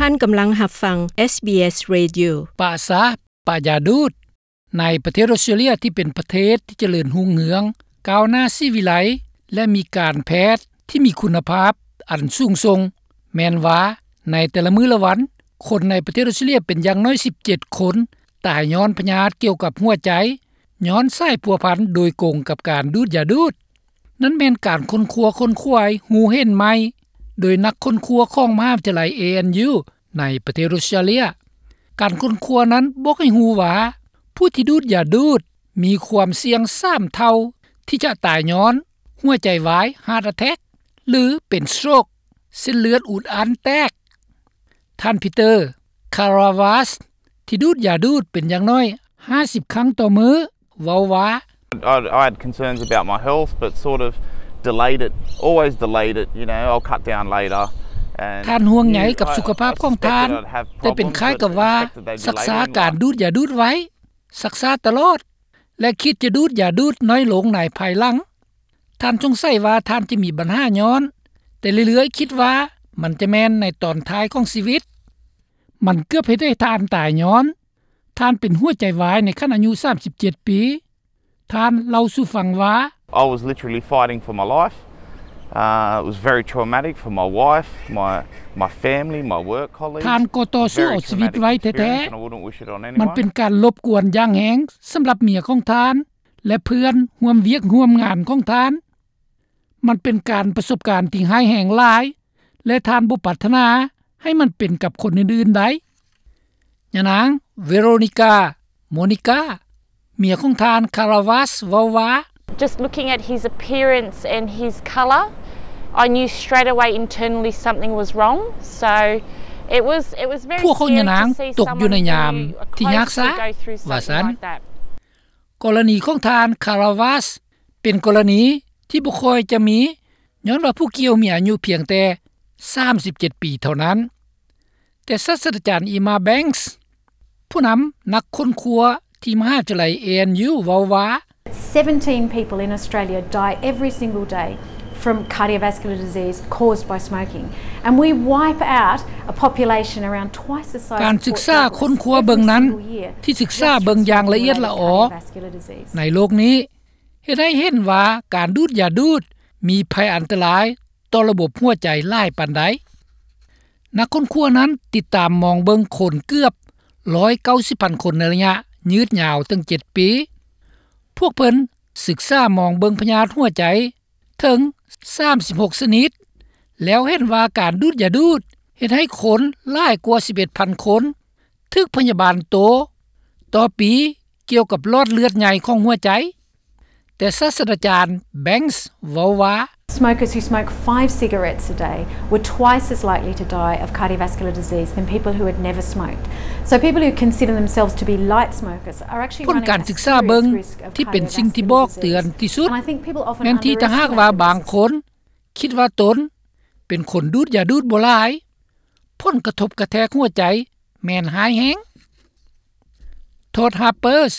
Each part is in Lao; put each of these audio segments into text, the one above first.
ທ່ານກຳລັງຮັບຟັງ ເອສບີເອສ Radio. ປະຊາ ປະຢາດູດ. ໃນປະເທດອົດສະຕຣາເລຍທີ່ເປັນປະເທດທີ່ຈະເລີນຮຸ່ງເຮືອງ, ກ້າວໜ້າສີວິໄລ ແລະ ມີການແພດທີ່ມີຄຸນນະພາບອັນສູງສົ່ງ, ແມ່ນວ່າໃນແຕ່ລະມື້ລະວັນ, ຄົນໃນປະເທດອົດສະຕຣາເລຍເປັນຢ່າງໜ້ອຍສິບເຈັດຄົນ ຕາຍຍ້ອນພະຍາດກ່ຽວກັບຫົວໃຈ, ຍ້ອນສາຍພົວພັນໂດຍກົງກັບການດູດຢາດູດ. ນັ້ນແມ່ນການຄົ້ນຄວ້າ ຄົ້ນຄວາຍຮູ້ເຫັນໃໝ່ ໂດຍນັກຄົ້ນຄວ້າຂອງມະຫາວິທະຍາໄລ ເອເອັນຢູ ໃນປະເທດອົດສະຕຣາເລຍ. ການຄົ້ນຄວ້ານັ້ນບອກໃຫ້ຮູ້ວ່າ ຜູ້ທີ່ດູດຢາດູດມີຄວາມສ່ຽງສາມເທົ່າ ທີ່ຈະຕາຍຍ້ອນຫົວໃຈວາຍ heart attack ຫຼື ເປັນ stroke ເສັ້ນເລືອດອຸດອັ່ນແຕກ. ທ່ານ Peter Karavas ທີ່ດູດຢາດູດເປັນຢ່າງໜ້ອຍຫ້າສິບຄັ້ງຕໍ່ມື້ ເວົ້າວ່າ I, I had concerns about my health, but sort of delayed it, always delayed it, you know, I'll cut down later. And ທ່ານຫ່ວງໃຍກັບສຸຂະພາບຂອງທ່ານ, ແຕ່ເປັນຄ້າຍກັບວ່າຊັກຊ້າການດູດຢາດູດໄວ້, ຊັກຊ້າຕະຫຼອດ ແລະ ຄິດຈະດູດຢາດູດນ້ອຍລົງໃນພາຍຫຼັງ. ທ່ານສົງໄສວ່າທ່ານຈະມີບັນຫາຍ້ອນ, ແຕ່ເລື້ອຍໆຄິດວ່າມັນຈະແມ່ນໃນຕອນທ້າຍຂອງຊີວິດ. ມັນເກືອບເຮັດໃຫ້ທ່ານຕາຍຍ້ອນ ທ່ານເປັນຫົວໃຈວາຍໃນຂັ້ນອາຍຸສາມສິບເຈັດປີ. ທ່ານເລົ່າສູ່ຟັງວ່າ I was literally fighting for my life. Uh, it was very traumatic for my wife, my, my family, my work colleagues. ທ່ານກໍຕໍ່ສູ້ເອົາຊີວິດໄວ້ແທ້ໆ. ມັນເປັນການລົບກວນຢ່າງແຮງສຳລັບເມຍຂອງທ່ານ ແລະ ເພື່ອນຮ່ວມວຽກຮ່ວມງານຂອງທ່ານ. ມັນເປັນການປະສົບການທີ່ຮ້າຍແຮງຫຼາຍ ແລະ ທ່ານບໍ່ປາດຖະໜາໃຫ້ມັນເປັນກັບຄົນອື່ນໆໄດ້. ຍານາງ Veronica Monica ເມຍຂອງທ່ານ Karavas ເວົ້າວ່າ Just looking at his appearance and his colour, I knew straight away internally something was wrong. So it was, it was very scary to see someone who ພວກຂອງຍານາງຕົກຢູ່ໃນຍາມທີ່ຍາກຊາກ ວ່າຊັ້ນ. ກໍລະນີຂອງທ່ານ Karavas ເປັນກໍລະນີທີ່ບໍ່ຄ່ອຍຈະມີ ຍ້ອນວ່າຜູ້ກ່ຽວມີອາຍຸພຽງແຕ່ສາມສິບເຈັດປີເທົ່ານັ້ນ. ແຕ່ສາດສະດາຈານ Emma Banks ຜູ້ນຳນັກຄົ້ນຄວ້າທີ່ມະຫາວິທະຍາໄລ ເອເອັນຢູ ເວົ້າວ່າ Seventeen people in Australia die every single day from cardiovascular disease caused by smoking. And we wipe out a population around twice the size of Port Douglas every single year just from avoiding cardiovascular disease. ການສຶກສາຄົ້ນຄວ້າເບິ່ງນັ້ນ ທີ່ສຶກສາເບິ່ງຢ່າງລະອຽດລະອໍໃນໂລກນີ້ ເຮັດໃຫ້ເຫັນວ່າການດູດຢາດູດມີໄພອັນຕະລາຍຕໍ່ລະບົບຫົວໃຈຫຼາຍປານໃດ. ນັກຄົ້ນຄວ້ານັ້ນຕິດຕາມມອງເບິ່ງຄົນເກືອບຮ້ອຍເກົ້າສິບພັນຄົນໃນໄລຍະຍືດຍາວເຖິງເຈັດປີ. ພວກເພິ່ນສຶກສາມອງເບິ່ງພະຍາດຫົວໃຈເຖິງສາມສິບຫົກຊະນິດ ແລ້ວເຫັນວ່າການດູດຢາດູດເຮັດໃຫ້ຄົນຫຼາຍກວ່າສິບເອັດພັນຄົນ ຖືກພະຍາບານໂຕຕໍ່ປີກ່ຽວກັບຫຼອດເລືອດໃຫຍ່ຂອງຫົວໃຈ. ແຕ່ສາດສະດາຈານ Banks ເວົ້າວ່າ Smokers who smoke five cigarettes a day were twice as likely to die of cardiovascular disease than people who had never smoked. So people who consider themselves to be light smokers are actually running a serious risk of cardiovascular disease. ຜົນການສຶກສາເບິ່ງທີ່ເປັນສິ່ງທີ່ບອກເຕືອນທີ່ສຸດ ແມ່ນທີ່ຖ້າຫາກວ່າບາງຄົນຄິດວ່າຕົນເປັນຄົນດູດຢາດູດບໍ່ຫຼາຍ ຜົນກະທົບກະແທກຫົວໃຈແມ່ນຮ້າຍແຮງ. Todd Harpers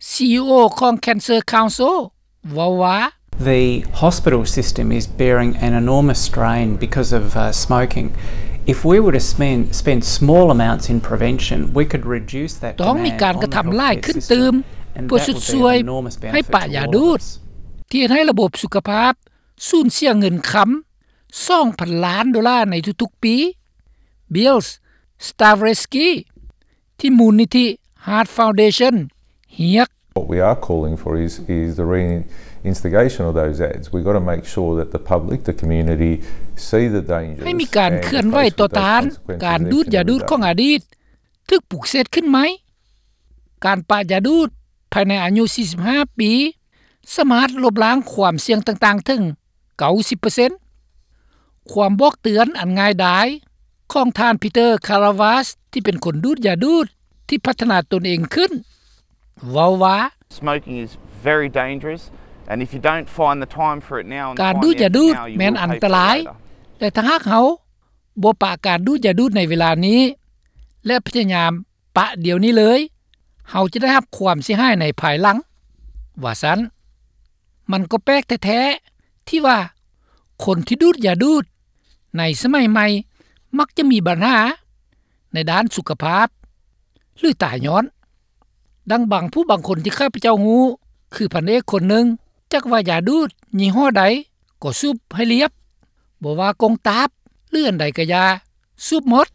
ຊີອີໂອຂອງ Cancer Council ເວົ້າວ່າ The hospital system is bearing an enormous strain because of, uh, smoking. If we were to spend, spend small amounts in prevention, we could reduce that demand on the healthcare system. ຕ້ອງມີການກະທຳຫຼາຍຂຶ້ນຕື່ມ ເພື່ອຊຸດຊ່ວຍໃຫ້ປະຢາດູດ ທີ່ເຮັດໃຫ້ລະບົບສຸຂະພາບ ສູນເສຍເງິນຄຳສອງພັນລ້ານໂດລາໃນທຸກໆປີ. Bill Stavretsky ທີ່ມູນນິທິ Heart Foundation ຮຽກ What we are calling for is, is the reinstigation of those ads. We've got to make sure that the public, the community, see the dangers ໃຫ້ມີການເຄື່ອນໄຫວຕໍ່ຕ້ານການດູດຢາດູດຂອງອະດີດ ຖືກປຸກເສດຂຶ້ນໃໝ່. ການປະຢາດູດພາຍໃນອາຍຸສີ່ສິບຫ້າປີ ສາມາດລົບລ້າງຄວາມສ່ຽງຕ່າງໆເຖິງເກົ້າສິບເປີເຊັນ. ຄວາມບອກເຕືອນອັນງ່າຍດາຍຂອງທ່ານ Peter Karavas ທີ່ເປັນຄົນດູດຢາດູດທີ່ພັດທະນາຕົນເອງຂຶ້ນ ເວົ້າວ່າ Smoking is very dangerous, and if you don't find the time for it now and the finances now, you will pay for it later. ການດູດຢາດູດແມ່ນອັນຕະລາຍ ແລະ ຖ້າຫາກເຮົາບໍ່ປະການດູດຢາດູດໃນເວລານີ້ ແລະ ພະຍາຍາມປະດຽວນີ້ເລີຍ ເຮົາຈະໄດ້ຮັບຄວາມເສຍຫາຍໃນພາຍຫຼັງ ວ່າຊັ້ນ. ມັນກໍແປກແທ້ໆ ທີ່ວ່າຄົນທີ່ດູດຢາດູດໃນສະໄໝໃໝ່ມັກຈະມີບັນຫາ ໃນດ້ານສຸຂະພາບ ຫຼືຕາຍຍ້ອນ. ດັ່ງບາງຜູ້ບາງຄົນທີ່ຂ້າພະເຈົ້າຮູ້ ຄືພັນເອກຄົນໜຶ່ງ ຈັກວ່າຢາດູດຍີ່ຫໍ້ໃດກໍສູບໃຫ້ລຽບ, ບໍ່ວ່າກົງຕາບ ຫຼືອັນໃດກະຢ່າ ສູບໝົດ.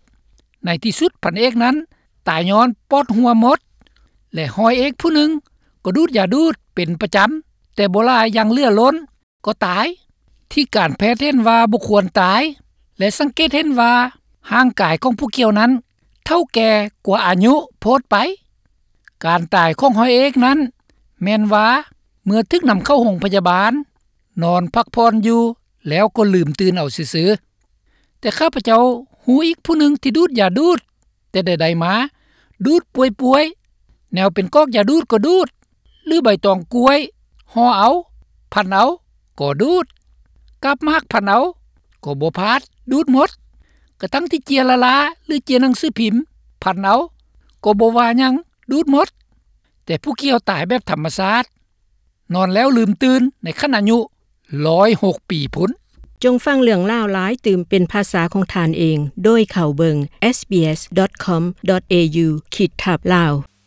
ໃນທີ່ສຸດພັນເອກນັ້ນຕາຍຍ້ອນປອດຮົ່ວໝົດ ແລະຮ້ອຍເອກຜູ້ໜຶ່ງກໍດູດຢາດູດເປັນປະຈຳ ແຕ່ບໍ່ຫຼາຍຢ່າງເຫຼືອລົ້ນ ກໍຕາຍ. ທີ່ການແພດເຫັນວ່າບໍ່ຄວນຕາຍ ແລະສັງເກດເຫັນວ່າຮ່າງກາຍຂອງຜູ້ກ່ຽວນັ້ນເຖົ້າແກ່ກວ່າອາຍຸໂພດໄປ. ການຕາຍຂອງຮ້ອຍເອກນັ້ນແມ່ນວ່າເມື່ອຖືກນຳເຂົ້າໂຮງພະຍາບານ ນອນພັກຜ່ອນຢູ່ແລ້ວກໍລືມຕື່ນເອົາຊື່ໆ. ແຕ່ຂ້າພະເຈົ້າຮູ້ອີກຜູ້ໜຶ່ງທີ່ດູດຢາດູດ ແຕ່ໃດໆມາ ດູດປ່ວຍໆ ແນວເປັນກອກຢາດູດກໍດູດ ຫຼືໃບຕອງກ້ວຍຫໍ່ເອົາ ພັນເອົາກໍດູດ ກາບໝາກພັນເອົາກໍບໍ່ພາດ ດູດໝົດ. ກະທັ່ງທີ່ເຈ້ຍລາລາ ຫຼືເຈ້ຍໜັງສືພິມ ພັນເອົາກໍບໍ່ວ່າຫຍັງ ດູດໝົດ. ແຕ່ຜູ້ກ່ຽວຕາຍແບບທຳມະຊາດ ນອນແລ້ວລືມຕື່ນໃນຂັ້ນອາຍຸຮ້ອຍຫົກປີພຸ້ນ. ຈົ່ງຟັງເລື່ອງລາວຫຼາຍຕື່ມເປັນພາສາຂອງທ່ານເອງ ໂດຍເຂົ້າເບິ່ງ SBS.com.au ຂີດທັບ Lao.